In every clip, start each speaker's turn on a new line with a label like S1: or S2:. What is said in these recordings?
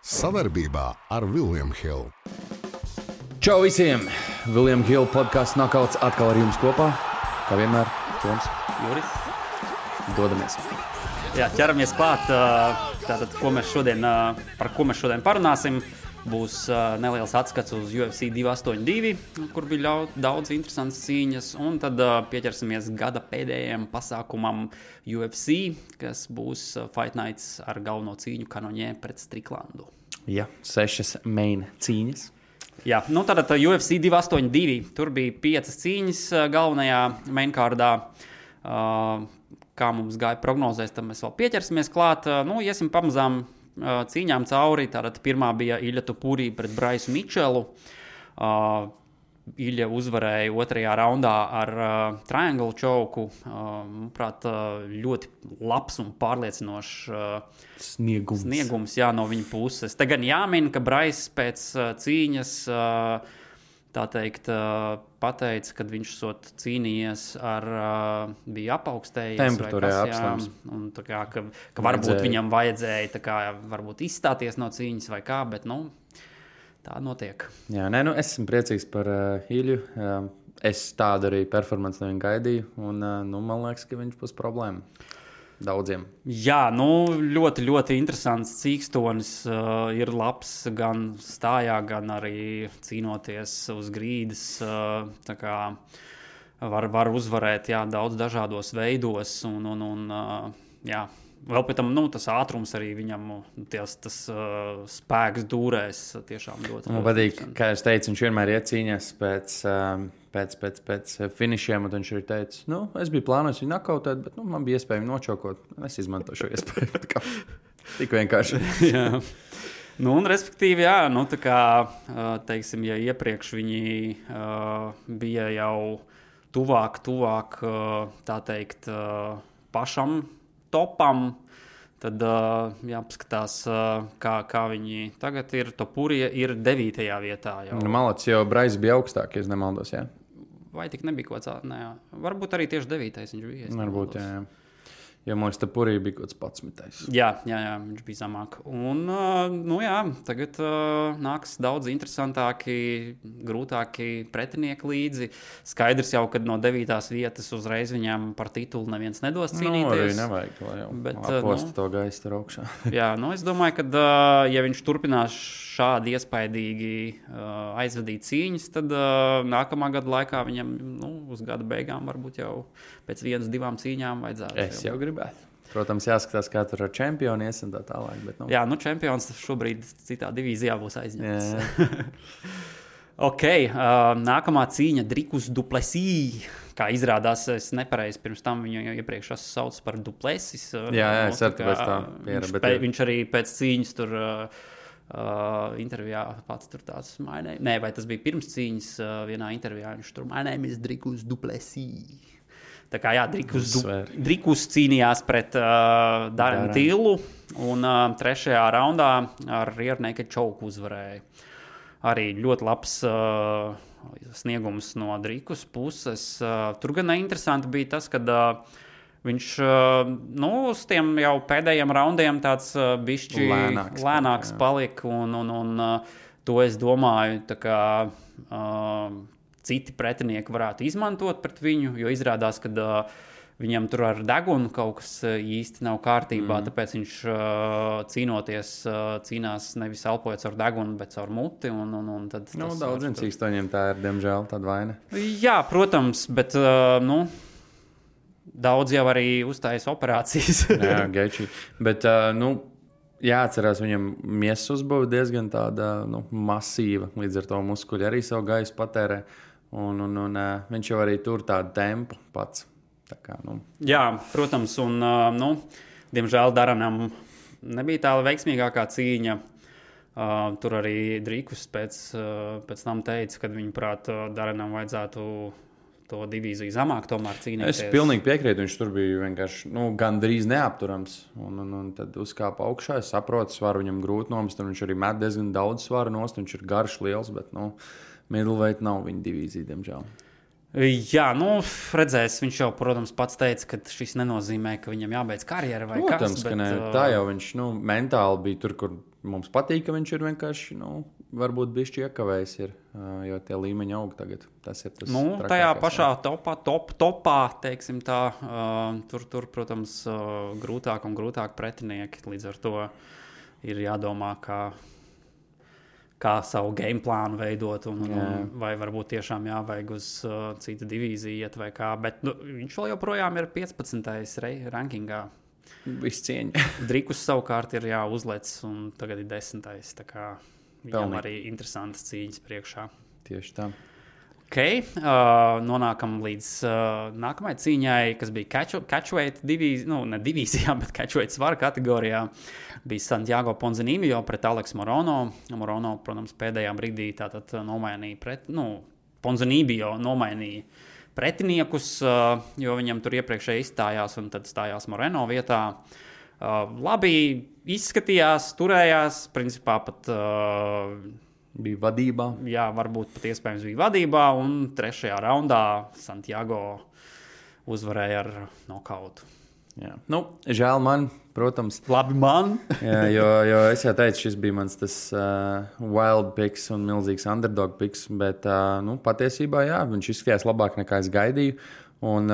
S1: Savarbībā ar William Hill.
S2: Čau visiem! William Hill podkāsts Knockouts atkal ar jums kopā. Kā vienmēr, Toms,
S3: Juris.
S2: Dodamies.
S3: Jā, ķeramies klāt. Tātad, par ko mēs šodien parunāsim, būs neliels atskats uz UFC 282, kur bija daudz interesantas cīņas, un tad pieķersimies gada pēdējiem pasākumam UFC, kas būs Fight Nights ar galveno cīņu Kanoņē pret Striklandu.
S2: Jā, 6 main cīņas.
S3: Jā, nu tātad UFC 282, tur bija 5 cīņas galvenajā mainkārdā. Kā mums gāja prognozēs, tad mēs vēl pieķersimies klāt. Iesim pamazām cīņām cauri. Tātad pirmā bija Ilja Topuri pret Braisu Mičelu. Ilja uzvarēja otrajā raundā ar triangle choku. Manuprāt, ļoti labs un pārliecinošs sniegums no viņa puses. Te gan jāmin, ka Brais pēc cīņas tā teikt pateica, kad viņš cīnījies ar bija apaugstējies
S2: temperatūrā apslams.
S3: Un tā kā, ka varbūt viņam vajadzēja tā kā varbūt izstāties no cīņas vai kā, bet tā notiek.
S2: Jā, es esmu priecīgs par Ilju. Es tādu arī performanci no viņa gaidīju, un man liekas, ka viņš būs problēma daudziem. Jā,
S3: ļoti, ļoti interesants cīkstonis. Ir labs gan stājā, gan arī cīnoties uz grīdas. Tā kā var uzvarēt daudz dažādos veidos. Jā. Vēl pēc tam tas ātrums arī viņam, tas spēks dūrēs tiešām ļoti.
S2: Man patīk, kā es teicu, viņš vienmēr iecīņās pēc finišiem, un viņš arī teica, es biju plānojis viņu nakautēt, bet man bija iespēja viņu nočokot. Es izmantoju šo iespēju. Tik vienkārši.
S3: Jā. Un respektīvi, jā, tā kā, teiksim, ja iepriekš viņi bija jau tuvāk, tā teikt, pašam topam, tad jāpaskatās, kā viņi tagad ir. Topurija ir 9. vietā.
S2: Malacis jau Brais bija augstāk, ja es nemaldos, jā?
S3: Vai tik nebija kaut kāds? Varbūt arī tieši 9. viņš bija.
S2: Varbūt, jā. Jo man Topurija bija kaut kāds 11.
S3: Jā, viņš bija zamāk. Un, tagad nāks daudz interesantāki, grūtāki pretinieki līdzi. Skaidrs jau, ka no 9. vietas uzreiz viņam par titulu neviens nedos cīnīties.
S2: Arī nevajag, lai jau aposta to gaistu tur augšā.
S3: Jā, es domāju, ka ja viņš turpinās šādi iespaidīgi aizvadīt cīņas, tad nākamā gada laikā viņam uz gada beigām varbūt jau pēc 1-2 cīņām vajadzētu.
S2: Es jau gribētu. Protams, jāskatās, kā tur ar čempionu ies un tā tālāk. Bet,
S3: Jā, čempions šobrīd citā divīzijā būs aizņemts. Ok, nākamā cīņa Dricus du Plessis. Kā izrādās, es nepareizi pirms tam viņu iepriekš saucu par Duplessis.
S2: Jā, es arī pēc tā piera.
S3: Viņš arī pēc cīņas tur intervijā pats tur tāds vai tas bija pirms cīņas vienā intervijā, viņš tur my name is Dricus du Plessis. Tā kā Dricus cīnījās pret Darren Tillu un 3. raundā ar rear naked choke uzvarēja. Arī ļoti labs sniegums no Dricus puses. Tur gan interesanti bija tas, kad viņš uz tiem jau pēdējiem raundiem tāds bišķi lēnāks palika, un to es domāju, tā kā citi pretinieki varētu izmantot pret viņu, jo izrādās, ka viņam tur ar degunu kaut kas īsti nav kārtībā, tāpēc viņš cīnās nevis elpojot ar degunu, bet ar muti. Tad
S2: daudziem cīkstoņiem tā ir, diemžēl, tāda vaina.
S3: Jā, protams, bet daudz jau arī uztājas operācijas.
S2: Jā, gaiči. Bet, jāatcerās, viņam miesas uzbūve diezgan tāda, masīva, līdz ar to muskuļi arī savu gaisu patērē. Un viņš jau arī tur tādu tempu pats. Tā kā,
S3: Jā, protams, un diemžēl Darrenam nebija tā veiksmīgākā cīņa. Tur arī Dricus pēc tam teica, ka viņuprāt Darrenam vajadzētu to divīziju zamāk tomēr cīnīties.
S2: Es pilnīgi piekrītu, viņš tur bija vienkārši gandrīz neapturams. Un tad uzkāpa augšā, es saprotu, svaru viņam grūti nomest, un viņš arī met diezgan daudz svaru nost, viņš ir garš liels, bet middleweight nav viņa divīzija, diemžēl.
S3: Jā, redzēs, viņš jau, protams, pats teica, ka šis nenozīmē, ka viņam jābeidz karjera vai
S2: protams,
S3: kas.
S2: Protams, ka ne. Tā jau viņš mentāli bija tur, kur mums patīk, ka viņš ir vienkārši, varbūt bišķi iekavējis ir, jo tie līmeņi aug tagad. Tas ir tas trakākais.
S3: Tajā pašā topā, teiksim tā, tur, protams, grūtāk un grūtāk pretinieki. Līdz ar to ir jādomā, kā savu game plānu veidot, vai varbūt tiešām jāvajag uz citu divīziju iet vai kā. Bet viņš vēl joprojām ir 15. rankingā.
S2: Viss cieņa.
S3: Drikus savukārt ir uzlecis un tagad ir 10. Tā kā viņam arī interesantas cīņas priekšā.
S2: Tieši tā.
S3: Nonākam līdz nākamajai cīņai, kas bija catchweight divīzijā, ne divīzijā, bet catchweight svara kategorijā. Bija Santiago Ponzinibbio pret Aleksu Morono. Morono, protams, pēdējā brīdī tātad nomainīja Ponzinibbio nomainīja pretiniekus, jo viņam tur iepriekšēji izstājās un tad stājās Moreno vietā. Labi izskatījās, turējās, principā pat
S2: bija vadībā.
S3: Jā, varbūt pat iespējams bija vadībā, un 3. raundā Santiago uzvarēja ar nokautu.
S2: Jā. Žēl man, protams.
S3: Labi man.
S2: Jā, jo es jau teicu, šis bija mans tas wild picks un milzīgs underdog picks, bet patiesībā jā, viņš izskatījās labāk nekā es gaidīju. Un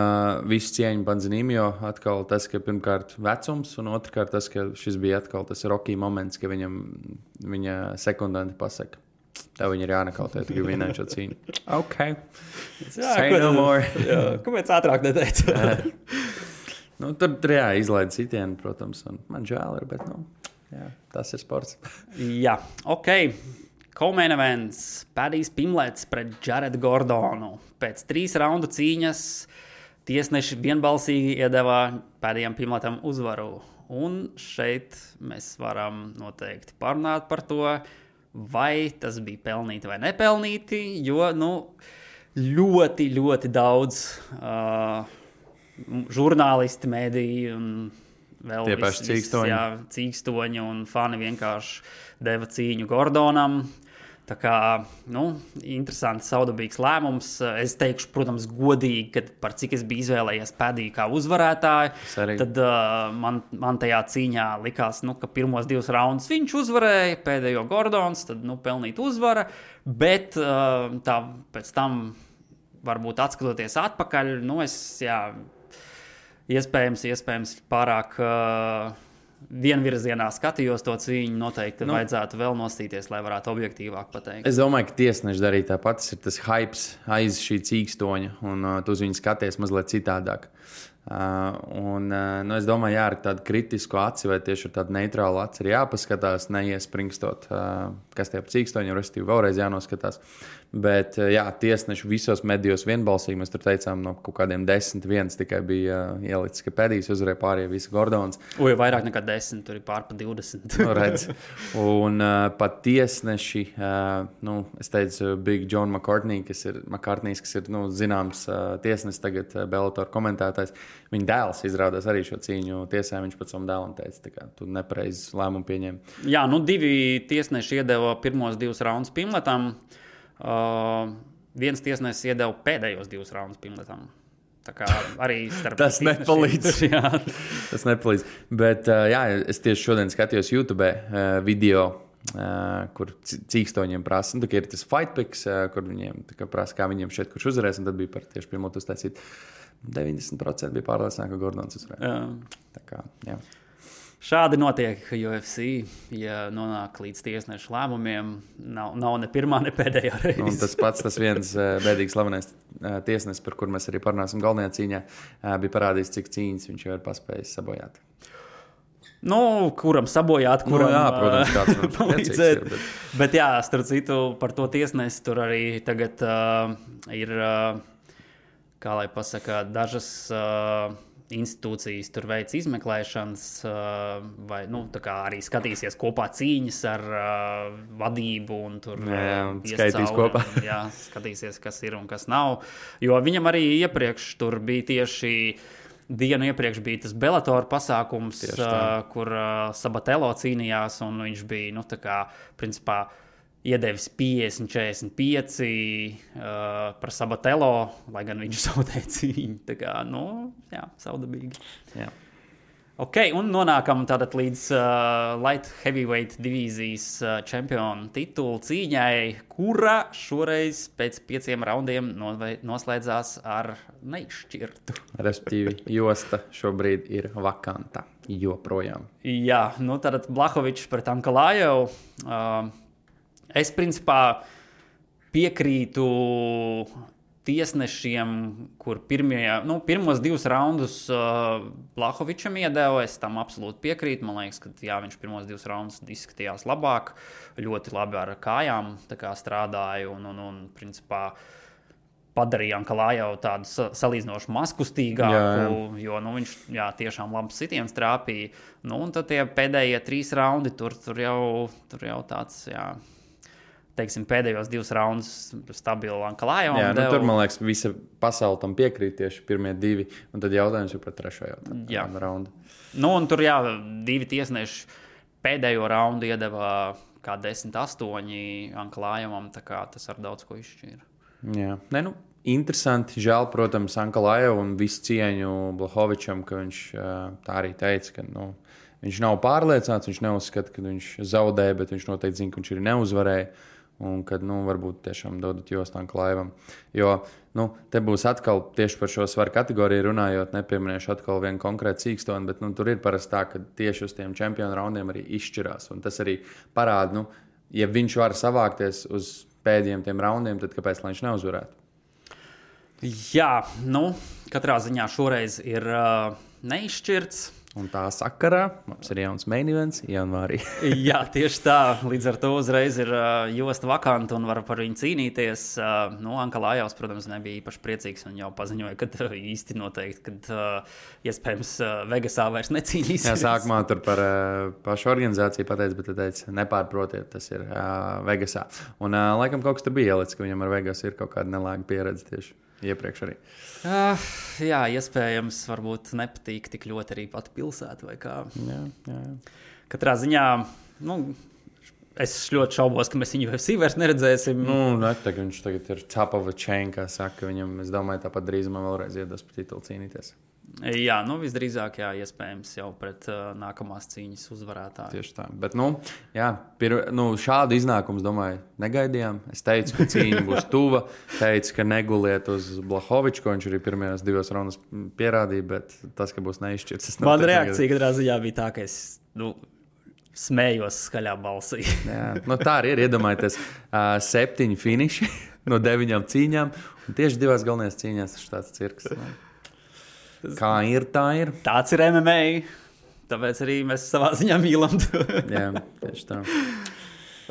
S2: visu cieņu Ponzinibbio atkal tas, ka pirmkārt vecums, un otrkārt tas, ka šis bija atkal tas Rocky moments, ka viņa sekundanti pasaka. Tev viņi ir jānekautē, tu gribi vinēt šo cīņu. Ok. Say no more.
S3: Kāpēc ātrāk neteica?
S2: Tur izlaida sitienu, protams, un man žēl ir, bet tas ir sports.
S3: Jā, ok. Co-main events, Padijs Pimlets pret Jaredu Gordonu. Pēc 3 raundu cīņas tiesneši vienbalsīgi iedeva Padijam Pimletam uzvaru. Un šeit mēs varam noteikti parunāt par to, vai tas bija pelnīti vai nepelnīti, jo ļoti, ļoti daudz žurnālisti, mediji un vēl
S2: tie paši cīkstoņi.
S3: Cīkstoņi un fani vienkārši deva cīņu Gordonam. Tā kā, interesants, saudabīgs lēmums. Es teikšu, protams, godīgi, ka par cik es biju izvēlējies Padiju kā uzvarētāju, tad man tajā cīņā likās, ka pirmos 2 raundus viņš uzvarēja, pēdējo Gordons, tad, pelnīt uzvara, bet pēc tam, varbūt atskatoties atpakaļ, iespējams pārāk vienvirzienā skatījos to cīņu, noteikti vajadzētu vēl nostīties, lai varētu objektīvāk pateikt.
S2: Es domāju, ka tiesneši darīja tāpat, tas ir tas hypes aiz šī cīkstoņa, un tu uz viņu skaties mazliet citādāk. Es domāju, ar tādu kritisku aci vai tieši ar tādu neitrālu aci ir jāpaskatās, neiespringstot, kas tie par cīkstoņiem, respektīvi vēlreiz jānoskatās. Bet, tiesneši visos medijos vienbalsīgi, mēs tur teicām, no kaut kādiem 10-1 tikai bija ielicis, ka Padijs uzvarēja pārējie visi Gordons.
S3: Vairāk nekā 10, tur ir pār pa 20.
S2: Redz. Un pat tiesneši, es teicu, Big John McCartney, kas ir zināms tiesnesis tagad Bellator komentētājs, viņa dēls izrādās arī šo cīņu tiesā, viņš pat savam dēlam teica, tā kā tu nepareizi lēmumu pieņem.
S3: Jā, 2 tiesneši iedeva pirmos 2 raundus Pimletam. Viens tiesnesis iedeva pēdējos 2 raundus Pimletam. Tā kā arī starp
S2: tas nepalīdz. Tas nepalīdz. Bet, es tieši šodien skatījos YouTube video, kur cīkstoņiem prasa. Tā ir tas fight picks, kur viņiem prasa, kā viņiem šeit kurš uzvarēs, un tad bija par tieši Pimletu uztaisīt. 90% bija pārliecināti, ka Gordons uzvarēja. Tā kā, jā.
S3: Šādi notiek UFC, ja nonāk līdz tiesnešu lēmumiem. Nav ne pirmā, ne pēdējā reize.
S2: Un tas viens bēdīgs slavenais tiesnesis, par kur mēs arī parunāsim galvenajā cīņā, bija parādījis, cik cīņas viņš jau ir paspējis sabojāt.
S3: Kuram sabojāt, kuram
S2: protams, kāds
S3: palīdzēt. Bet starp citu, par to tiesnesi tur arī tagad ir, kā lai pasaka, dažas institūcijas tur veic izmeklēšanas, vai tā kā arī skatīsies kopā cīņas ar vadību un tur
S2: skaitīs kopā.
S3: Skatīsies, kas ir un kas nav. Jo viņam arī iepriekš tur bija tieši dienu iepriekš bija tas Bellator pasākums, kur Sabatello cīnījās, un viņš bija, tā kā, principā, iedevis 50-45 par Sabatello, lai gan viņš zaudēja cīņu. Tā kā, saudabīgi.
S2: Jā.
S3: Ok, un nonākam tātad līdz light heavyweight divīzijas čempionu titulu cīņai, kura šoreiz pēc 5 raundiem noslēdzās ar neizšķirtu.
S2: Respektīvi, josta šobrīd ir vakanta joprojām.
S3: Jā, nu tātad Blachowicz pret Ankalajevu. Es principā piekrītu tiesnešiem, kur pirmos 2 raundus Blachowicam iedeva, es tam absolūti piekrītu. Man liekas, ka jā, viņš pirmos 2 raundus izskatījās labāk, ļoti labi ar kājām strādāja un principā padarīja Ankalajevu tādu salīdzinoši mazkustīgāku, jo viņš tiešām labs sitiens trāpīja. Un tad tie pēdējie 3 raundi, tur jau tāds, teiksim, pēdējos 2 raundus stabili Ankalajevam.
S2: Jā, tur, man liekas, visa pasaule tam piekrīt tieši pirmie 2, un tad jautājums ir par 3. raundu.
S3: Un tur, 2 tiesneši pēdējo raundu iedeva kā 10-8 Ankalajevam, tā kā tas ar daudz ko izšķīra.
S2: Jā, interesanti, žēl, protams, Ankalajevu un visu cieņu Blachowicam, ka viņš tā arī teica, ka, viņš nav pārliecināts, viņš neuzskata, ka viņš zaudēja, bet viņš noteikti zina, ka viņš arī neuzvarēja. Un kad, varbūt tiešām dodat jostu Ankalajevam. Jo, te būs atkal tieši par šo svaru kategoriju runājot, nepieminēšu atkal vienu konkrētu sīkstoni, bet, tur ir parasti tā, ka tieši uz tiem čempionu raundiem arī izšķirās. Un tas arī parāda, ja viņš var savākties uz pēdējiem tiem raundiem, tad kāpēc viņš neuzvarētu?
S3: Jā, katrā ziņā šoreiz ir neizšķirts.
S2: Un tā sakarā mums ir jauns main events janvārī.
S3: Jā, tieši tā. Līdz ar to uzreiz ir josta vakanta un var par viņu cīnīties. Ankalajevs, protams, nebija īpaši priecīgs un jau paziņoja, ka īsti noteikti, kad iespējams Vegasā vairs necīnīsies.
S2: Jā, sākumā tur par pašu organizāciju pateica, bet teica, nepārprotiet, tas ir Vegasā. Un laikam kaut kas tur bija ielicis, ka viņam ar Vegas ir kaut kāda nelāga pieredze tieši iepriekš arī.
S3: Jā, iespējams, varbūt nepatīk tik ļoti arī pati pilsēta vai kā.
S2: Jā.
S3: Katrā ziņā, es ļoti šaubos, ka mēs viņu UFC vairs neredzēsim.
S2: Viņš tagad ir top of the chain, kā saka viņam. Es domāju, tāpat drīzumā vēlreiz iedos par titulu cīnīties.
S3: Jā, visdrīzāk, iespējams jau pret nākamās cīņas uzvarētāju.
S2: Tieši tā. Bet, šādu iznākumu, domāju, negaidījām. Es teicu, ka cīņa būs tuva. Teicu, ka neguliet uz Blachowiczu, ko viņš arī pirmajās 2 raundos pierādīja, bet tas, ka būs neizšķirts.
S3: Man reakcija katrā ziņā bija tā, ka es smējos skaļā balsī.
S2: Jā, tā arī ir. Iedomājieties, 7 finiši no 9 cīņām, un tieši 2 galvenajās cīņās tas ir tāds cirks. Kā ir, tā ir.
S3: Tāds ir MMA, tāpēc arī mēs savā ziņā mīlam to.
S2: Jā, tieši tā.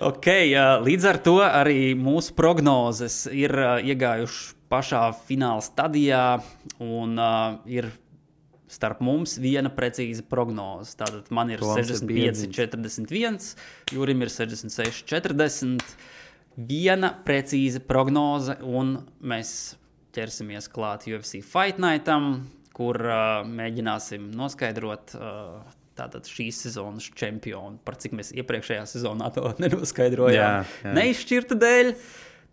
S3: Ok, līdz ar to arī mūsu prognozes ir iegājuši pašā fināla stadijā un ir starp mums viena precīza prognoze. Tātad man ir 65-41, Jurim ir 66-40. Viena precīza prognoze un mēs ķersimies klāt UFC Fight Nightam, kur mēģināsim noskaidrot tātad šīs sezonas čempionu, par cik mēs iepriekšējā sezonā to nenoskaidrojām.
S2: Jā.
S3: Neizšķirta dēļ.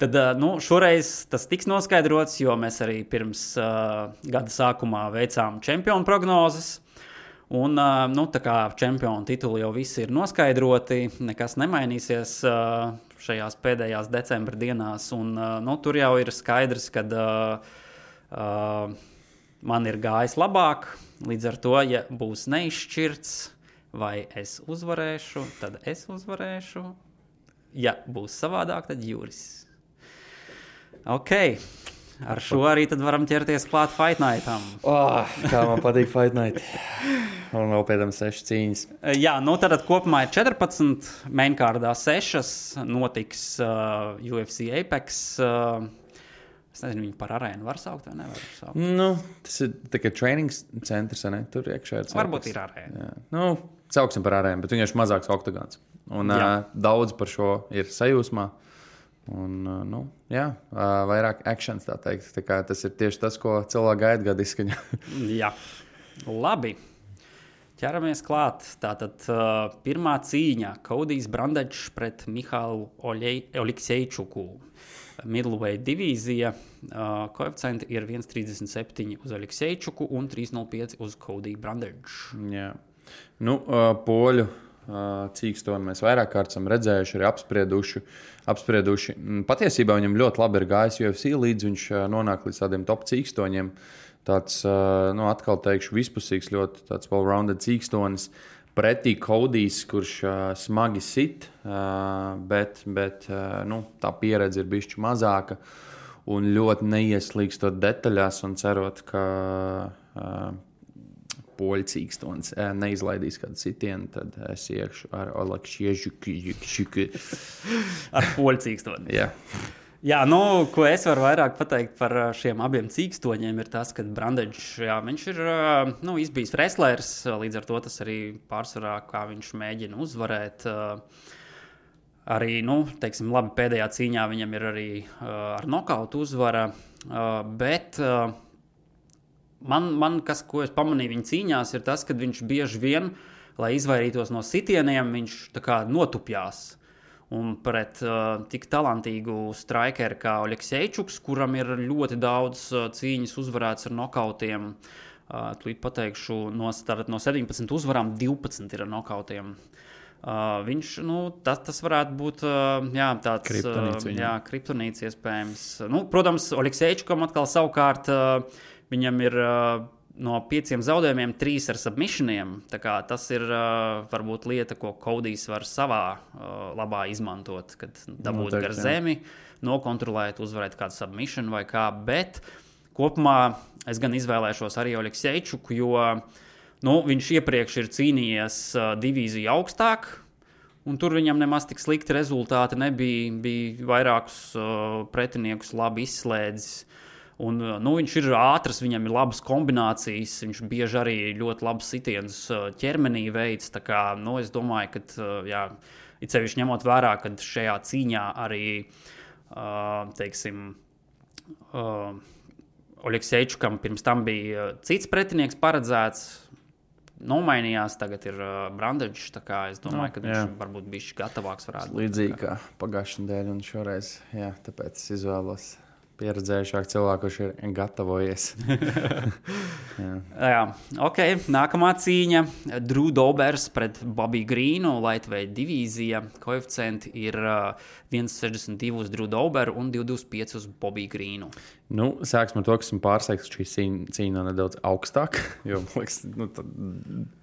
S3: Tad šoreiz tas tiks noskaidrots, jo mēs arī pirms gada sākumā veicām čempionu prognozes. Un, tā kā čempionu tituli jau visi ir noskaidroti, nekas nemainīsies šajās pēdējās decembra dienās. Un, tur jau ir skaidrs, ka man ir gājis labāk. Līdz ar to, ja būs neizšķirts, vai es uzvarēšu, tad es uzvarēšu. Ja būs savādāk, tad Juris. Ok, ar šo arī tad varam ķerties klāt Fight Nightam.
S2: Kā man patīk Fight Night. Un vēl pēc tam 6 cīņas.
S3: Jā, tad kopumā ir 14, mainkārdā 6, notiks UFC Apex. Es nezinu, viņu par arēnu var saukt vai nevar saukt?
S2: Tas ir tikai training centrs, ne? Tur iekšā ir.
S3: Varbūt ir arēna.
S2: Sauksim par arēnu, bet viņš ir mazāks oktagons. Un daudz par šo ir sajūsmā. Un, vairāk actions, tā teikt. Tā kā tas ir tieši tas, ko cilvēki gaida gada izskaņā.
S3: Jā, labi. Ķeramies klāt. Tātad pirmā cīņa – Kodijs Brandečs pret Mihālu Oleksejčuku. Middleweight divīzija. Koeficienti ir 1,37 uz Oleksejčuku un 3,05 uz Kodiju Brandeču.
S2: Jā. Nu, poļu cīkstoni mēs vairāk kārt esam redzējuši, arī apsprieduši. Patiesībā viņam ļoti labi ir gājis UFC, līdz viņš nonāk līdz tādiem top cīkstoņiem. Tāds, atkal teikšu, vispusīgs, ļoti tāds well-rounded cīkstonis. Pretī Kodijs, kurš smagi sit, bet tā pieredze ir bišķi mazāka un ļoti neieslīgstot detaļās un cerot, ka poļu cīkstonis neizlaidīs kādu sitienu, tad es iekšu ar Oleksejčuku.
S3: Ar poļu cīkstoni.
S2: Jā.
S3: Jā, ko es varu vairāk pateikt par šiem abiem cīkstoņiem, ir tas, ka Brandečs, viņš ir izbijis wrestlers, līdz ar to tas arī pārsvarā, kā viņš mēģina uzvarēt. Arī, teiksim, labi, pēdējā cīņā viņam ir arī ar nokautu uzvara, bet ko es pamanīju viņa cīņās, ir tas, ka viņš bieži vien, lai izvairītos no sitieniem, viņš tā kā notupjās. Un pret tik talantīgu strikeru kā Oleksejčuks, kuram ir ļoti daudz cīņas uzvarēts ar nokautiem, tūlīt pateikšu, no 17 uzvarām 12 ir ar nokautiem. Viņš, tas varētu būt tāds kriptonīts iespējams. Protams, Oleksejčukam atkal savukārt viņam ir no 5 zaudējumiem 3 ar submissioniem. Tā kā tas ir varbūt lieta, ko Kodijs var savā labā izmantot, kad dabūt gar zemi, nokontrolēt, uzvarēt kādu submission vai kā, bet kopumā es gan izvēlēšos arī Oleksejčuku, jo viņš iepriekš ir cīnījies divīziju augstāk, un tur viņam nemaz tik slikti rezultāti nebija, bija vairākus pretiniekus labi izslēdzis. Un, viņš ir ātrs, viņam ir labas kombinācijas, viņš bieži arī ļoti labas sitienus ķermenī veids. Tā kā, es domāju, ka, it sevišķi ņemot vērā, ka šajā cīņā arī, teiksim, Oleksejčukam pirms tam bija cits pretinieks paredzēts, nomainījās, tagad ir Brandečs, tā kā es domāju, ka viņš varbūt bišķi gatavāks varētu būt.
S2: Līdzīgi kā pagājušajā nedēļā un šoreiz, tāpēc es izvēlos pieredzējušāk cilvēku, kurš ir gatavojies.
S3: Jā, ok. Nākamā cīņa. Drew Dobbers pret Bobby Greenu, lightweight divīzija. Koeficienti ir 1,62 uz Drew Dobberu un 2,25 uz Bobby Greenu.
S2: Sāksim ar to, ka esmu pārsteigts, ka šī cīņa nedaudz augstāk, jo, liekas,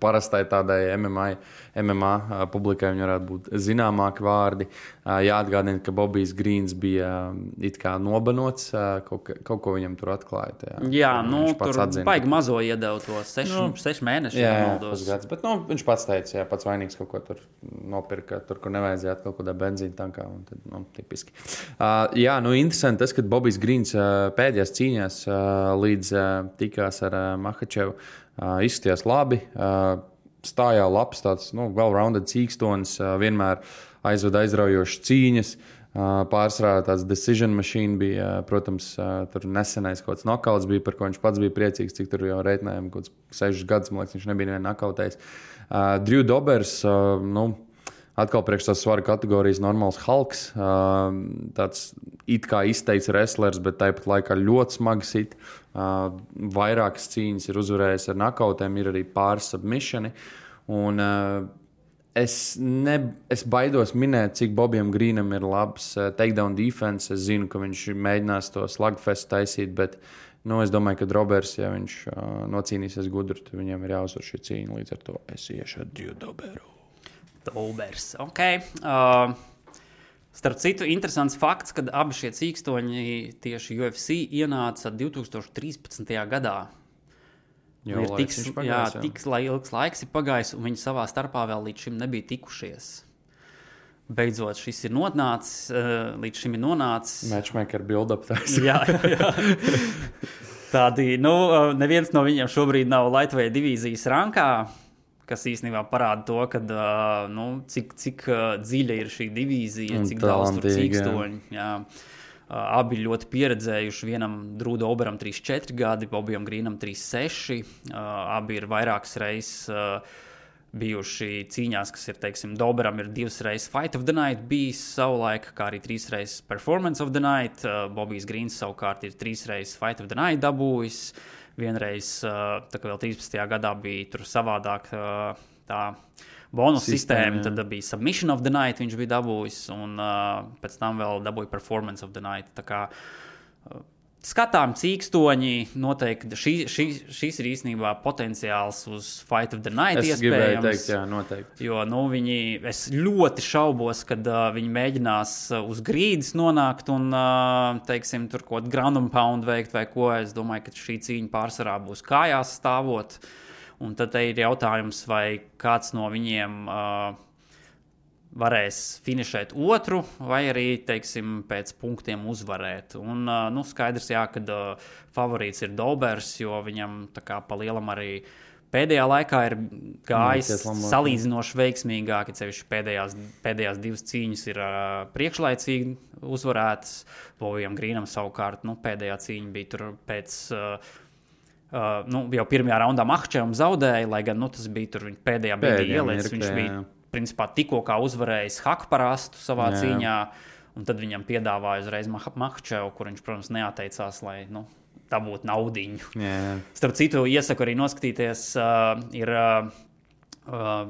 S2: parastai tādai MMA publikai viņi varētu būt zināmāki vārdi. Jāatgādina, ka Bobbijs Greens bija it kā nobanots, kaut ko viņam tur atklāja.
S3: Jā, tur baigi mazo iedevu to 6 mēnešu.
S2: Jā, pusgads, bet viņš pats teica, pats vainīgs kaut ko tur nopirka, tur, kur nevajadzētu kaut kādā benzīna tankā, un tad, tipiski. Interesanti tas, ka Bobbijs Greens pēdējās cīņās līdz tikās ar Makhačevu izskatījās labi, stājā labs tāds, well-rounded cīkstonis, vienmēr aizved aizraujošas cīņas, pārsvarā tāds decision machine bija, protams, tur nesenais kaut kāds nokauts bija, par ko viņš pats bija priecīgs, cik tur jau reitinājām kaut kāds 6 gadus, man liekas, viņš nebija nevienu nokautējis. Drew Dobbers, atkal priekš tās svaru kategorijas normāls Hulks, tāds it kā izteikts wrestlers, bet tāpat laikā ļoti smagi sit. Vairākas cīņas ir uzvarējis ar nokautēm, ir arī pāris submissioni. Un es baidos minēt, cik Bobijam Greenam ir labs takedown defense. Es zinu, ka viņš mēģinās to slugfest taisīt, bet es domāju, ka Dobbers, ja viņš nocīnīsies gudri, tad viņam ir jāuzvar šī cīņa. Līdz ar to es iešu ar Drew Dobberu.
S3: Dobbers, ok. Starp citu, interesants fakts, kad abi šie cīkstoņi tieši UFC ienāca 2013. gadā. Tik ilgs laiks ir pagājis, un viņi savā starpā vēl līdz šim nebija tikušies. Beidzot, šis ir nonācis, līdz šim ir nonācis.
S2: Matchmaker build-up tās.
S3: Jā. Tādi, neviens no viņiem šobrīd nav lightweight divīzijas rankā, kas īstenībā parāda to, ka, cik dziļa ir šī divīzija, cik daudz tur cīkstoņi. Jā. Abi ļoti pieredzējuši, vienam Drūda Oberam 3-4 gadi, Bobijam Grīnam 3-6. Abi ir vairākas reizes bijuši cīņās, kas ir, teiksim, Doberam ir 2 reizes Fight of the Night bijis savulaik, kā arī 3 reizes Performance of the Night. Bobijs Grīns savukārt ir 3 reizes Fight of the Night dabūjis. Vienreiz, tā kā vēl 13. gadā bija tur savādāk tā bonus sistēma, tad bija Submission of the Night, viņš bija dabūjis, un pēc tam vēl dabūja Performance of the Night. Tā kā skatām cīkstoņi, noteikti šis ir īstenībā potenciāls uz Fight of the Night iespējams.
S2: Es gribēju teikt, jā, noteikti.
S3: Jo, es ļoti šaubos, kad viņi mēģinās uz grīdas nonākt un, teiksim, tur kaut ground and pound veikt vai ko. Es domāju, ka šī cīņa pārsvarā būs kājās stāvot. Un tad ir jautājums, vai kāds no viņiem varēs finišēt otru, vai arī, teiksim, pēc punktiem uzvarēt. Un, skaidrs, jā, kad favorīts ir Dobers, jo viņam tā kā pa lielam arī pēdējā laikā ir gājis salīdzinoši veiksmīgāk, ja sevišķi pēdējās 2 cīņas ir priekšlaicīgi uzvarētas. Bobijam Grīnam savukārt, pēdējā cīņa bija tur pēc... jau pirmajā raundā Mahčevam zaudēja, lai gan tas bija tur viņa pēdējā brīdī ieliecis. Viņš bija principā tikko kā uzvarējis Hakparastu savā cīņā, un tad viņam piedāvāja uzreiz Mahčevu, kur viņš, protams, neatteicās, lai dabūtu naudiņu. Starp citu, iesaku arī noskatīties, ir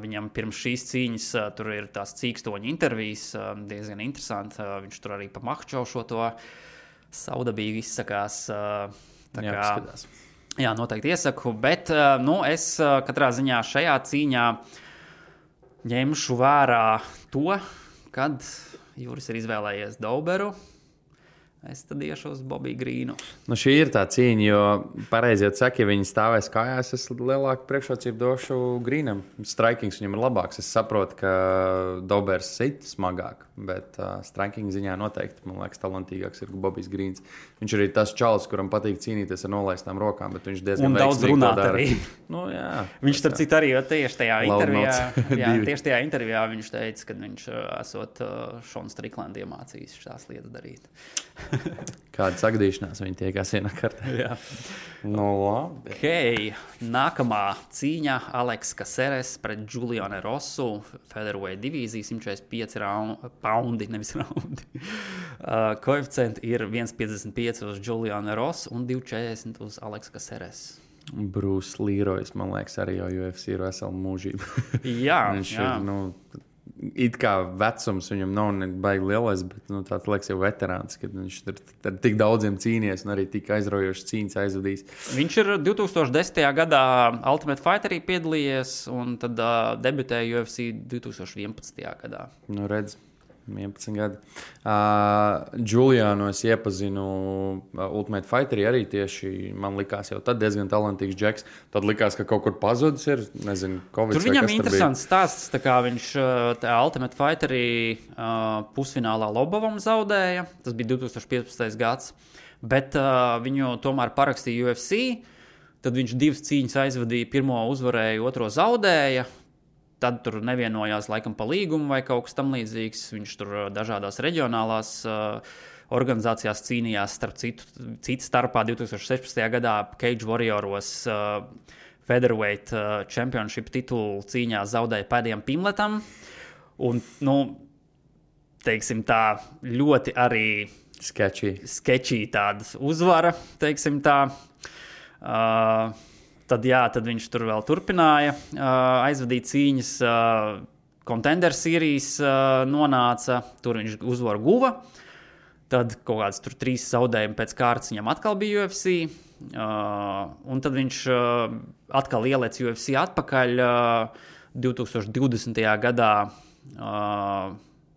S3: viņam pirms šīs cīņas tur ir tās cīkstoņa intervijas, diezgan interesanti. Viņš tur arī pa Mahčevu šo to saudabīgi izsakās. Jā, noteikti iesaku, bet es katrā ziņā šajā cīņā ņemšu vērā to, kad Juris ir izvēlējies Doberu. Es tad iešu uz Bobiju Grīnu.
S2: Šī ir tā cīņa, jo pareizi jau saka, ja viņi stāvēs kājās, es lielāku priekšrocību došu Grīnam. Strikings viņam ir labāks. Es saprotu, ka Dobers sit smagāk, bet striking ziņā noteikti, man liekas, talantīgāks ir Bobijs Grīns. Viņš ir tas čalis, kuram patīk cīnīties ar nolaistām rokām, bet viņš diezgan
S3: daudz runāt arī.
S2: Jā.
S3: Viņš starp citu arī tieši tajā intervijā viņš teica, ka viņš esot Šonu Striklandi iemācījis šās lietas darīt.
S2: Kāda sagdīšanās viņi tiekās vienā kartā.
S3: Jā.
S2: Labi.
S3: Okay. Nākamā cīņa Aleks Caceres pret Julianu Rosu. Featherweight divīzija, 145 paundi, nevis raundi. Koeficienti ir 1,55 uz Julianu Rosu un 2,40 uz Aleks Caceres.
S2: Bruce Leroy's, man liekas, arī jau UFC ir vesela mūžība.
S3: Jā,
S2: viņš ir, it kā vecums viņam nav baigi lielais, bet tāds liekas jau veterāns, kad viņš ir tik daudziem cīnies un arī tik aizraujošas cīņas aizvadījis.
S3: Viņš ir 2010. gadā Ultimate Fighterī piedalījies un tad debitēja UFC 2011. gadā.
S2: Redz. 11 gadi. Julianu es iepazinu Ultimate Fighterī arī tieši, man likās jau tad diezgan talantīgs džeks. Tad likās, ka kaut kur pazudis ir, nezinu, Covid.
S3: Tur viņam interesants stāsts, tā kā viņš Ultimate Fighterī pusfinālā Lobovam zaudēja. Tas bija 2015. gads. Bet viņu tomēr parakstīja UFC. Tad viņš 2 cīņas aizvadīja, pirmo uzvarēja, otro zaudēja. Tad tur nevienojās laikam pa līgumu vai kaut kas tam līdzīgs. Viņš tur dažādās reģionālās organizācijās cīnījās, citu starpā 2016. gadā Cage Warrioros Featherweight Championship titulu cīņā zaudēja pēdējiem Pimletam. Un, teiksim tā, ļoti arī sketchy tāda uzvara, teiksim tā. Tad viņš tur vēl turpināja aizvadīt cīņas. Contender Series nonāca, tur viņš uzvaru guva. Tad kaut kāds tur 3 zaudējumi pēc kārtas viņam atkal bija UFC. Un tad viņš atkal ielēc UFC atpakaļ 2020. gadā.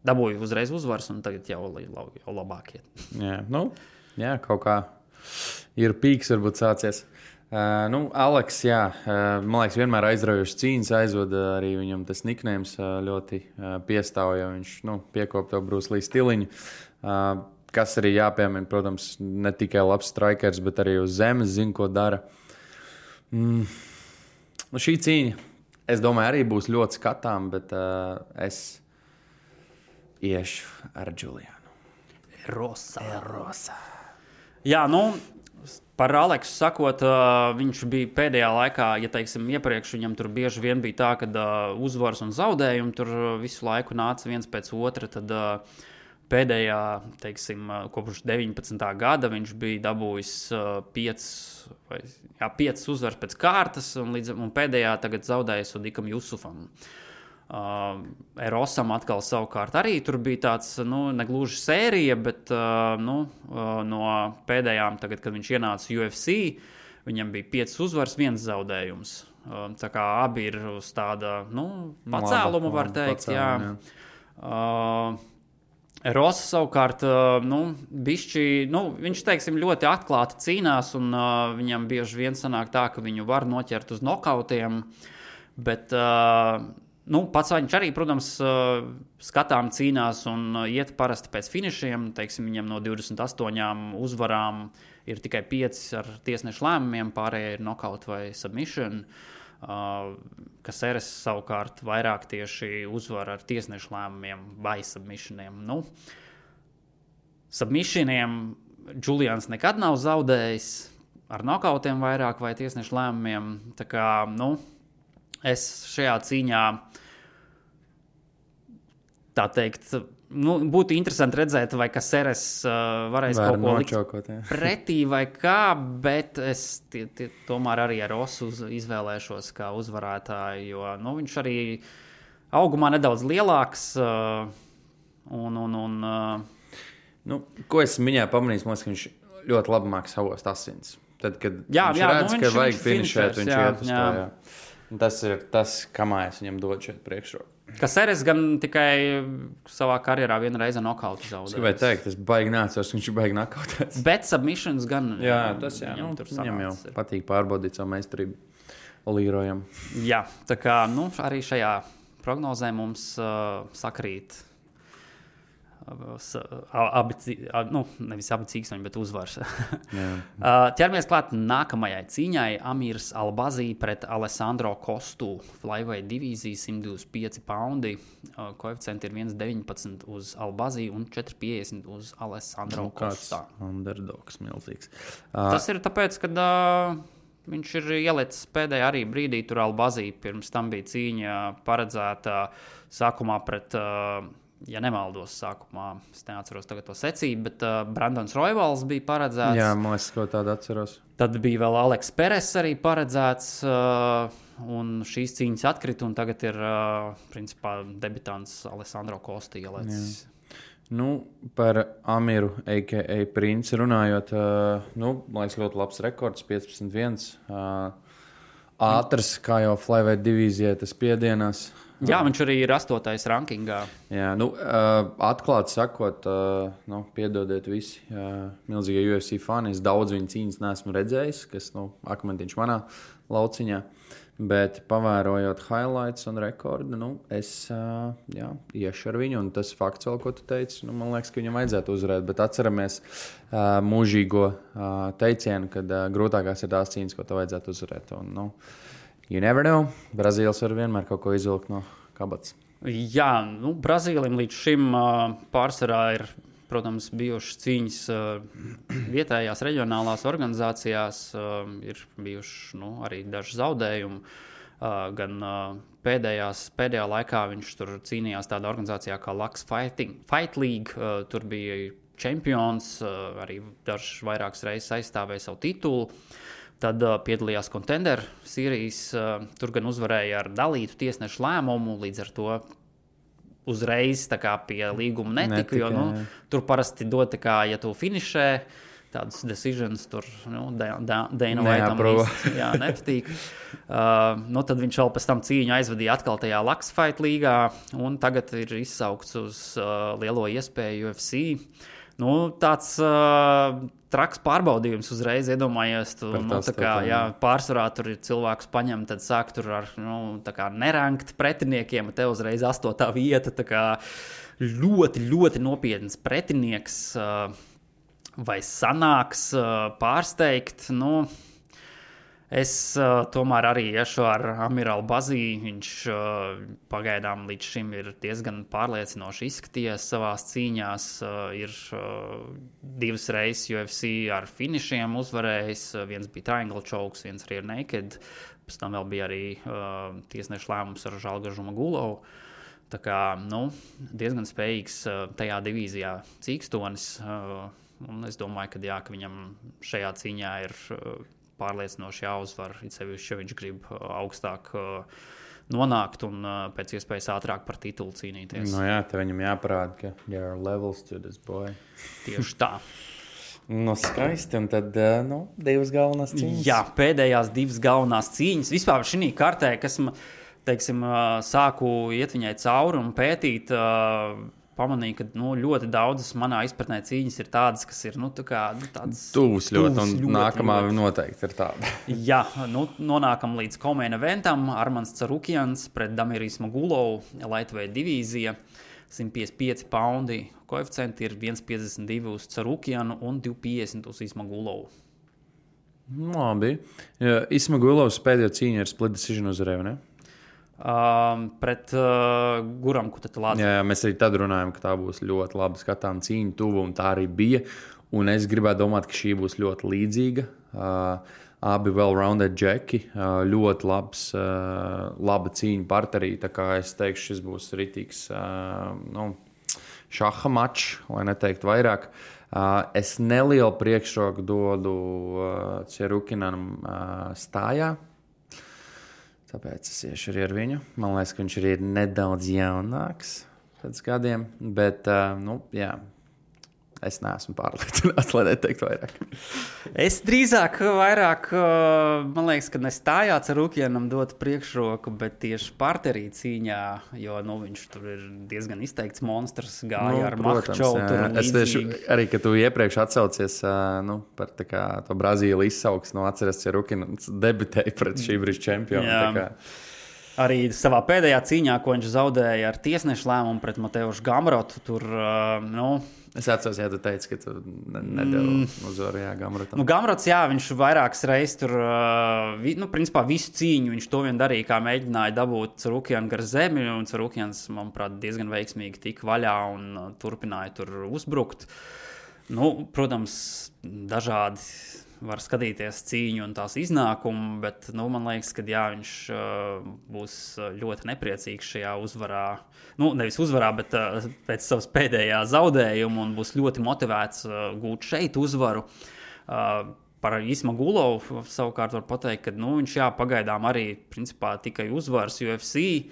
S3: Dabūja uzreiz uzvaras un tagad jau labākie.
S2: Jā, kaut kā ir pīks varbūt sācies. Aleks, jā, man liekas, vienmēr aizraujošas cīņas aizvada arī viņam tas nicknames ļoti piestāv, jo viņš piekop to Bruce Lee stiliņu, kas arī jāpiemina, protams, ne tikai labs strikers, bet arī uz zemes zina, ko dara. Šī cīņa, es domāju, arī būs ļoti skatām, bet es iešu ar Julianu.
S3: Rosa. Jā, par Aleksu sakot, viņš bija pēdējā laikā, ja teiksim, iepriekš viņam tur bieži vien bija tā, ka uzvaras un zaudējumi tur visu laiku nāca viens pēc otra, tad pēdējā, teiksim, kopš 19. gada viņš bija dabūjis 5 uzvaras pēc kārtas, un pēdējā tagad zaudējis Odikam Jusufam. Erosam atkal savukārt arī tur bija tāds, negluži sērija, bet no pēdējām, tagad, kad viņš ienāca UFC, viņam bija 5 uzvaras, 1 zaudējums. Tā kā abi ir uz tāda, pacēluma, var teikt, jā. Erosa savukārt, bišķi, viņš, teiksim, ļoti atklāti cīnās, un viņam bieži vien sanāk tā, ka viņu var noķert uz nokautiem, bet pats viņš arī, protams, skatām cīnās un iet parasti pēc finišiem. Teiksim, viņam no 28 uzvarām ir tikai 5 ar tiesnešu lēmumiem, pārējie ir knockout vai submission. Caceres savukārt vairāk tieši uzvar ar tiesnešu lēmumiem vai submissioniem. Submissioniem Julians nekad nav zaudējis, ar knockoutiem vairāk vai tiesnešu lēmumiem. Tā kā, es šajā cīņā, tā teikt, būtu interesanti redzēt, vai Caceres varēs kaut ko likt pretī vai kā, bet es tomēr arī ar Rosu izvēlēšos kā uzvarētāju, jo viņš arī augumā nedaudz lielāks.
S2: Ko es viņā pamanīju, ka viņš ļoti labi māk savost asins. Tad, kad viņš redz, ka vajag finišēt, viņš iet uz to. Jā. Tas ir tas, kamā es viņam dodu šeit priekšroku.
S3: Caceres gan tikai savā karjerā vienu reizi nokautu zaudējis.
S2: Es gribēju teikt, es baigi nācos, viņš ir baigi nokautēts.
S3: Bet submissions gan.
S2: Jā, tas viņam jau patīk pārbaudīt savu meistarību Līrojam.
S3: Jā, tā kā arī šajā prognozē mums sakrīt nevis abi cīkstoņi, bet uzvars. Ķeramies klāt nākamajai cīņai. Amirs Albazī pret Alessandro Kostu. Flyweight divīzija, 125 poundi. Koeficienti ir 1,19 uz Albazī un 4,50 uz Alessandro Kostā.
S2: Underdogs milzīgs.
S3: Tas ir tāpēc, ka viņš ir ielicis pēdējā arī brīdī tur Albazī. Pirms tam bija cīņa paredzēta sākumā pret... Ja nemaldos sākumā, es neatceros tagad to secību, bet Brandons Royvals bija paredzēts.
S2: Jā, man liekas, ko tādu atceros.
S3: Tad bija vēl Aleks Peres arī paredzēts, un šīs cīņas atkrita, un tagad ir, principā, debitants Alessandro Kosta ielicis.
S2: Par Amiru, a.k.a. Princi runājot, man liekas, ļoti labs rekords, 15-1. Ātrs, kā jau flyweight divīzijai, tas piedienās.
S3: Jā, viņš arī ir 8. rankingā.
S2: Jā, atklāti sakot, piedodiet visi milzīgie UFC fani. Es daudz viņu cīņas neesmu redzējis, kas akmentiņš manā lauciņā. Bet pavērojot highlights un rekordu, es iešu ar viņu. Un tas fakts vēl, ko tu teici, man liekas, ka viņam vajadzētu uzvarēt. Bet atceramies mūžīgo teicienu, kad grūtākās ir tās cīņas, ko tev vajadzētu uzvarēt. Un, you never know. Brazīlis var vienmēr kaut ko izvilkt no kabatas.
S3: Jā, Brazīlim līdz šim pārsvarā ir, protams, bijušas cīņas vietējās reģionālās organizācijās. Ir bijuši arī daži zaudējumi. Gan pēdējā laikā viņš tur cīnījās tādā organizācijā kā Lux Fight League. Tur bija čempions, arī dažs vairākas reizes aizstāvēja savu titulu. Tad piedalījās Contender Series, tur gan uzvarēja ar dalītu tiesnešu lēmumu, līdz ar to uzreiz pie līguma netika, jo tur parasti dod, ja tu finišē tādus decisions, tur Dana Whiteam nepatīk. Tad viņš vēl pēc tam cīņu aizvadīja atkal tajā Lux Fight līgā, un tagad ir izsaukts uz lielo iespēju UFC. Tāds traks pārbaudījums uzreiz, iedomājies, pārsvarā tur ir cilvēks paņem, tad sāk tur ar nerankt pretiniekiem, te uzreiz 8. vieta, ļoti, ļoti nopietns pretinieks, vai sanāks pārsteigt, Es tomēr arī iešu ar Amirālu Bazī. Viņš pagaidām līdz šim ir diezgan pārliecinoši izskatījies savās cīņās. Ir 2 reizes UFC ar finišiem uzvarējis. Viens bija triangle chokes, viens arī ir naked. Pēc tam vēl bija arī tiesneša lēmums ar Žalgaru Zhumagulavu. Tā kā, diezgan spējīgs tajā divīzijā cīkstonis. Un es domāju, ka viņam šajā cīņā ir pārliecinoši jāuzvar, it sevišķi, ja viņš grib augstāk nonākt un pēc iespējas ātrāk par titulu cīnīties.
S2: Te viņam jāparāda, ka there are levels to this boy.
S3: Tieši tā.
S2: Skaisti, un tad, 2 galvenās cīņas.
S3: Jā, pēdējās 2 galvenās cīņas. Vispār šī kartē, kas, teiksim, sāku iet viņai cauri un pētīt, pamanīju, ka ļoti daudzas manā izpratnē cīņas ir tādas, kas ir tādas
S2: tuvas ļoti, un nākamā noteikti ir tāda.
S3: Jā, nonākam līdz co-main eventam. Armans Carukians pret Damiru Ismagulovu, lightweight divīzija, 155 paundi. Koeficienti ir 1,52 uz Carukianu un 2,50 uz Ismagulovu.
S2: Labi. Ismagulovs pēdējo cīņu ir split decision uzvarēja, ne?
S3: Pret Guram Kutatalādzi.
S2: Jā, mēs arī tad runājam, ka tā būs ļoti laba skatām cīņa tuvu, un tā arī bija. Un es gribētu domāt, ka šī būs ļoti līdzīga. Abi well-rounded džeki, ļoti laba cīņa parterī. Tā kā es teikšu, šis būs ritīgs šaha mačs, lai neteiktu vairāk. Es nelielu priekšroku dodu Cerukinam stājā. Tāpēc es iešu arī ar viņu. Man liekas, ka viņš arī ir nedaudz jaunāks pēc gadiem. Bet, es neesmu pārliecināts, lai neteiktu vairāk.
S3: Es drīzāk vairāk, man liekas, ka nestājā Carukianam dot priekšroku, bet tieši parterī cīņā, jo viņš tur ir diezgan izteikts monstrs, gāja ar Makčovu.
S2: Es tieši arī, ka tu iepriekš atsaucies par to Brazīlu izsauks, atceries Carukins debitēja pret šī brīža čempionu.
S3: Arī savā pēdējā cīņā, ko viņš zaudēja ar tiesnešu lēmumu pret Mateušu Gamrotu, tur,
S2: Es atceros, ja tu teici, ka tu nedevi uzvaru Gamrotam.
S3: Gamrots, viņš vairākas reizes tur, principā visu cīņu viņš to vien darīja, kā mēģināja dabūt Carukianu gar zemi, un Carukians, manuprāt, diezgan veiksmīgi tika vaļā un turpināja tur uzbrukt. Protams, dažādi var skatīties cīņu un tās iznākumu, bet man liekas, ka viņš būs ļoti nepriecīgs šajā uzvarā. Nevis uzvarā, bet pēc savas pēdējā zaudējuma un būs ļoti motivēts gūt šeit uzvaru. Par Ismagulovu savukārt var pateikt, ka viņš pagaidām arī principā tikai uzvaras UFC.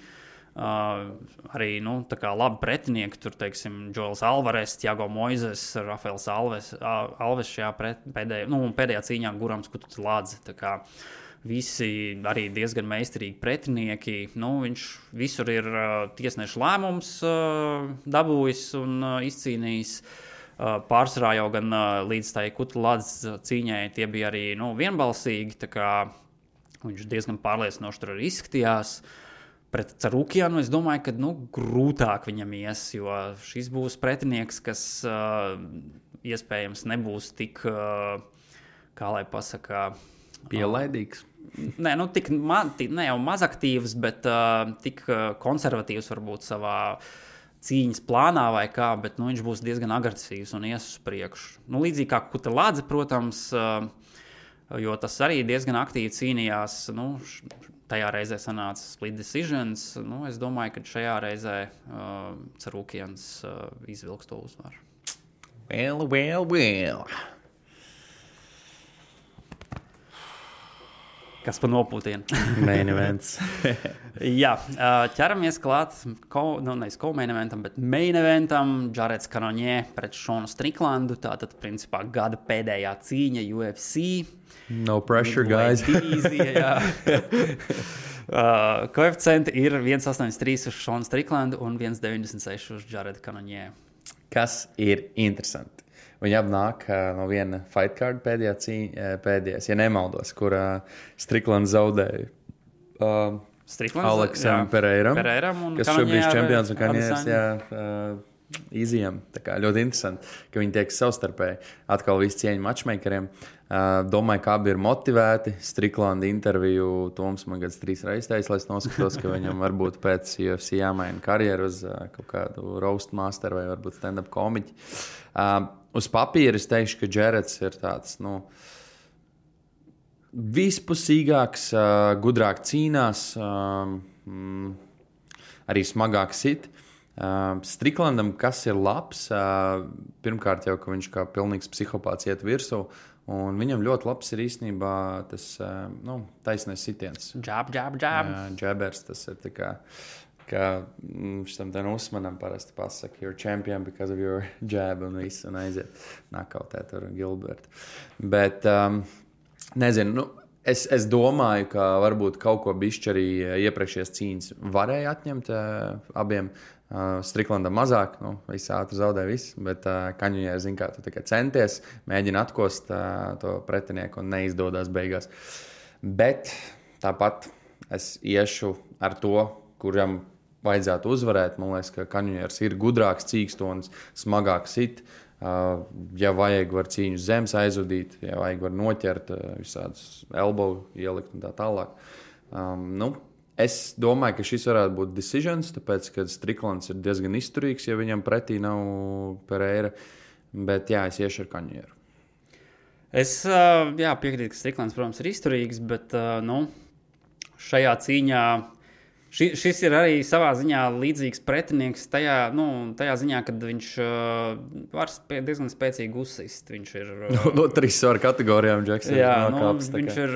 S3: Arī labi pretinieki, tur teiksim Joels Alvarez, Thiago Moises, Rafaels Alves šajā pēdējā cīņā Gurams Kutatalādze. Tā kā visi arī diezgan meistarīgi pretinieki. Viņš visur ir tiesneša lēmums dabūjis un izcīnījis. Pārsvarā jau gan līdz tai Kutatalādzes cīņai tie bija arī vienbalsīgi, tā kā viņš diezgan pārliecinoši tur arī izskatījās. Pret Carukianu es domāju, ka grūtāk viņam ies, jo šis būs pretinieks, kas iespējams nebūs tik, kā lai pasaka,
S2: pielaidīgs.
S3: Ne jau mazaktīvs, bet tik konservatīvs varbūt savā cīņas plānā vai kā, bet viņš būs diezgan agresīvs un ies uz priekšu. Līdzīgi kā Kutatalādze, protams, jo tas arī diezgan aktīvi cīnījās, tajā reizē sanāca split decisions. Es domāju, ka šajā reizē Carukians izvilks to uzvaru.
S2: Well.
S3: Kas pa nopūtienu?
S2: Main events.
S3: Jā, ķeramies klāt, nevis co-main eventam, bet main eventam. Jareds Cannonier pret Šonu Striklandu. Tātad, principā, gada pēdējā cīņa UFC.
S2: No pressure, guys.
S3: Koeficienti ir 1,83 uz Šonu Striklandu un 1,96 uz Jaredu Cannonier.
S2: Kas ir interesanti? Viņi apnāk no viena fight card pēdējās, ja nemaldos, kur Striklands zaudēja Aleksam Pereiram,
S3: un
S2: kas šobrīd čempions un Kanieris, Easy'am. Tā kā ļoti interesanti, ka viņi tiek savstarpēji. Atkal viss cieņa matchmakeriem. Domāju, ka abi ir motivēti. Striklanda interviju Toms man gads 3 reizes teica, lai es noskatos, ka viņam varbūt pēc UFC jāmaina karjeru uz kaut kādu roast master vai varbūt stand-up komiķi. Uz papīra es teikšu, ka Jareds ir tāds, vispusīgāks, gudrāk cīnās, arī smagāk sit. Striklandam, kas ir labs, pirmkārt jau, ka viņš kā pilnīgs psihopāts iet virsū, un viņam ļoti labs ir īstenībā tas taisnais sitiens.
S3: Jab.
S2: Jabers, tas ir tā kā šitam ten Usmanam parasti pasaka, you're champion because of your jab, un viss, un aiziet nakautēt ar Gilbertu. Bet, nezinu, es domāju, ka varbūt kaut ko bišķi arī iepriekšējās cīņas varēja atņemt abiem. Striklandam mazāk, viss ātri zaudē viss, bet Kaņuņēr, zin kā, tu tikai centies, mēģina atkost to pretinieku un neizdodas beigās. Bet tāpat es iešu ar to, kuram vajadzētu uzvarēt. Man liekas, ka Kaņuņērs ir gudrāks, cīkstonis, smagāks sit. Ja vajag, var cīņu zemes aizvadīt, ja vajag, var noķert visādus elbow ielikt un tā tālāk. Es domāju, ka šis varētu būt decisions, tāpēc, ka Striklands ir diezgan izturīgs, ja viņam pretī nav Pereira. Bet jā, es iešu ar Kaņuņēru.
S3: Es piekrītu, ka Striklands, protams, ir izturīgs, bet šajā cīņā šis ir arī savā ziņā līdzīgs pretinieks tajā ziņā, kad viņš var diezgan spēcīgi uzsist. Viņš ir
S2: no 3 svara kategorijām, Džeksons.
S3: Viņš ir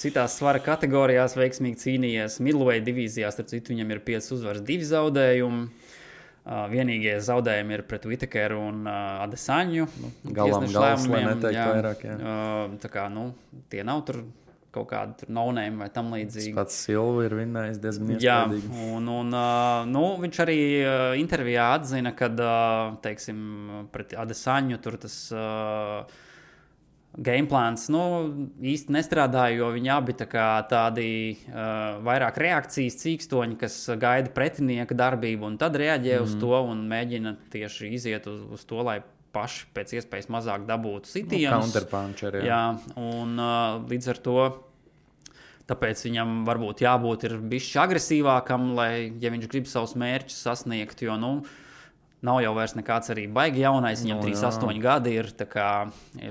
S3: citās svara kategorijās veiksmīgi cīnījies. Middleweight divīzijās, starp citu, viņam ir 5 uzvaras, 2 zaudējumi. Vienīgie zaudējumi ir pret Whittakeru un Adesaņu.
S2: Gals, lai neteikt vairāk.
S3: Tā kā, tie nav tur kaut kāda tur no-name vai tam līdzīgi.
S2: Pats Silva ir vinnējis diezgan iespējīgi.
S3: Jā, un viņš arī intervijā atzina, kad, teiksim, pret Adesaņu tur tas gameplāns, īsti nestrādāja, jo viņi abi tādi vairāk reakcijas cīkstoņi, kas gaida pretinieka darbību un tad reaģē uz to un mēģina tieši iziet uz to, lai paši pēc iespējas mazāk dabūtu sitienus.
S2: Counterpuncher,
S3: jā. Un līdz ar to tāpēc viņam varbūt jābūt ir bišķi agresīvākam, lai, ja viņš grib savus mērķus sasniegt, jo, nav jau vairs nekāds arī baigi jaunais, viņam 38 gadi ir, tā kā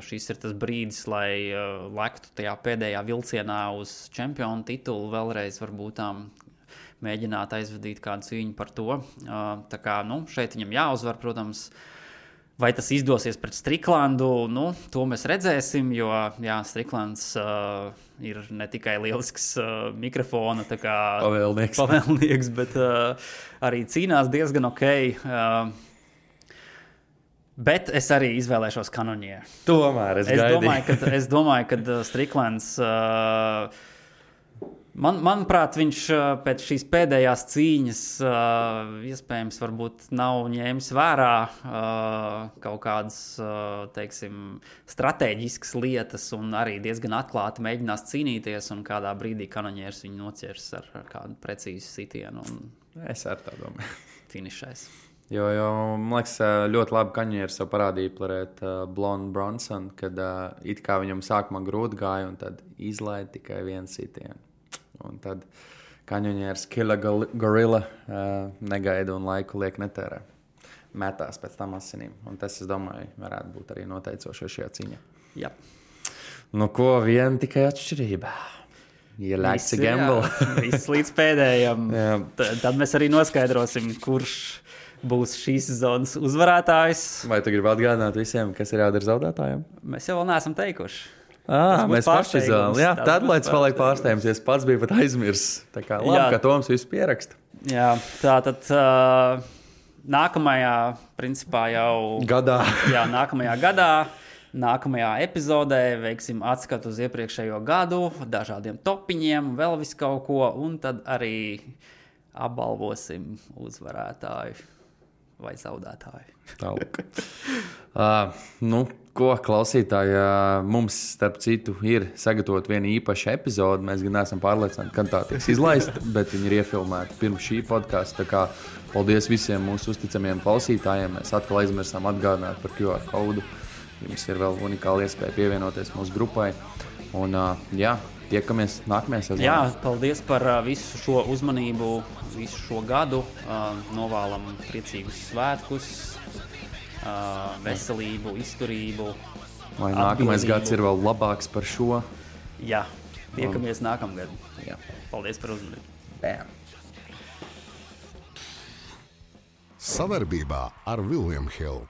S3: šis ir tas brīdis, lai lektu tajā pēdējā vilcienā uz čempionu titulu, vēlreiz varbūt mēģināt aizvadīt kādu cīņu par to. Tā kā, šeit viņam jāuzvar, protams. Vai tas izdosies pret Striklandu, to mēs redzēsim, jo Striklands ir ne tikai lielisks mikrofona pavēlnieks, bet arī cīnās diezgan ok. Bet es arī izvēlēšos Kaņuņēru.
S2: Tomēr
S3: es domāju, ka Striklands... Manuprāt, viņš pēc šīs pēdējās cīņas iespējams varbūt nav ņēmis vērā kaut kādas, teiksim, stratēģiskas lietas un arī diezgan atklāti mēģinās cīnīties un kādā brīdī Kaņuņērs viņu noķers ar kādu precīzu sitienu un
S2: es ar tā domāju.
S3: Finišais.
S2: Jo, man liekas, ļoti labi Kaņuņērs jau parādīja pret Blondu Bronsonu, kad it kā viņam sākumā grūti gāja un tad izlaida tikai vienu sitienu. Un tad Kaņuņērs Killer Gorilla negaida un laiku liek netērē. Metās pēc tam asinīm. Un tas, es domāju, varētu būt arī noteicošais šajā cīņā.
S3: Jā.
S2: Ko vien tikai atšķirība. You like to gamble.
S3: Viss līdz pēdējam. Tad mēs arī noskaidrosim, kurš būs šīs sezonas uzvarētājs.
S2: Vai tu gribi atgādināt visiem, kas ir jādara zaudētājiem?
S3: Mēs jau vēl neesam teikuši.
S2: Mēs paši izvēlamies. Jā, tad, lai es paliek pārsteigums, ja es pats biju pat aizmirsis. Tā kā labi, ka Toms visu pieraksta.
S3: Jā, tātad nākamajā, principā jau...
S2: Gadā.
S3: Jā, nākamajā gadā, nākamajā epizodē veiksim atskatu uz iepriekšējo gadu, dažādiem topiņiem, vēl visu kaut ko, un tad arī apbalvosim uzvarētāju. vai zaudētāji.
S2: Tālāk. Nu, ko klausītāji, mums, starp citu, ir sagatavot viena īpaša epizode. Mēs gan neesam pārliecināti, kad tā tiks izlaista, bet viņi ir iefilmēti pirms šī podkasta. Tā kā paldies visiem mūsu uzticamiem klausītājiem. Mēs atkal aizmirsām atgādināt par QR kodu. Jums ir vēl unikāla iespēja pievienoties mūsu grupai. Un, tiekamies nākamajā sezonā.
S3: Jā, paldies par visu šo uzmanību, visu šo gadu. Novēlam priecīgus svētkus, veselību, izturību.
S2: Lai nākamais gads ir vēl labāks par šo.
S3: Jā, tiekamies nākamgad.
S2: Jā.
S3: Paldies par uzmanību.
S2: Bam.
S1: Savarbībā ar William Hill.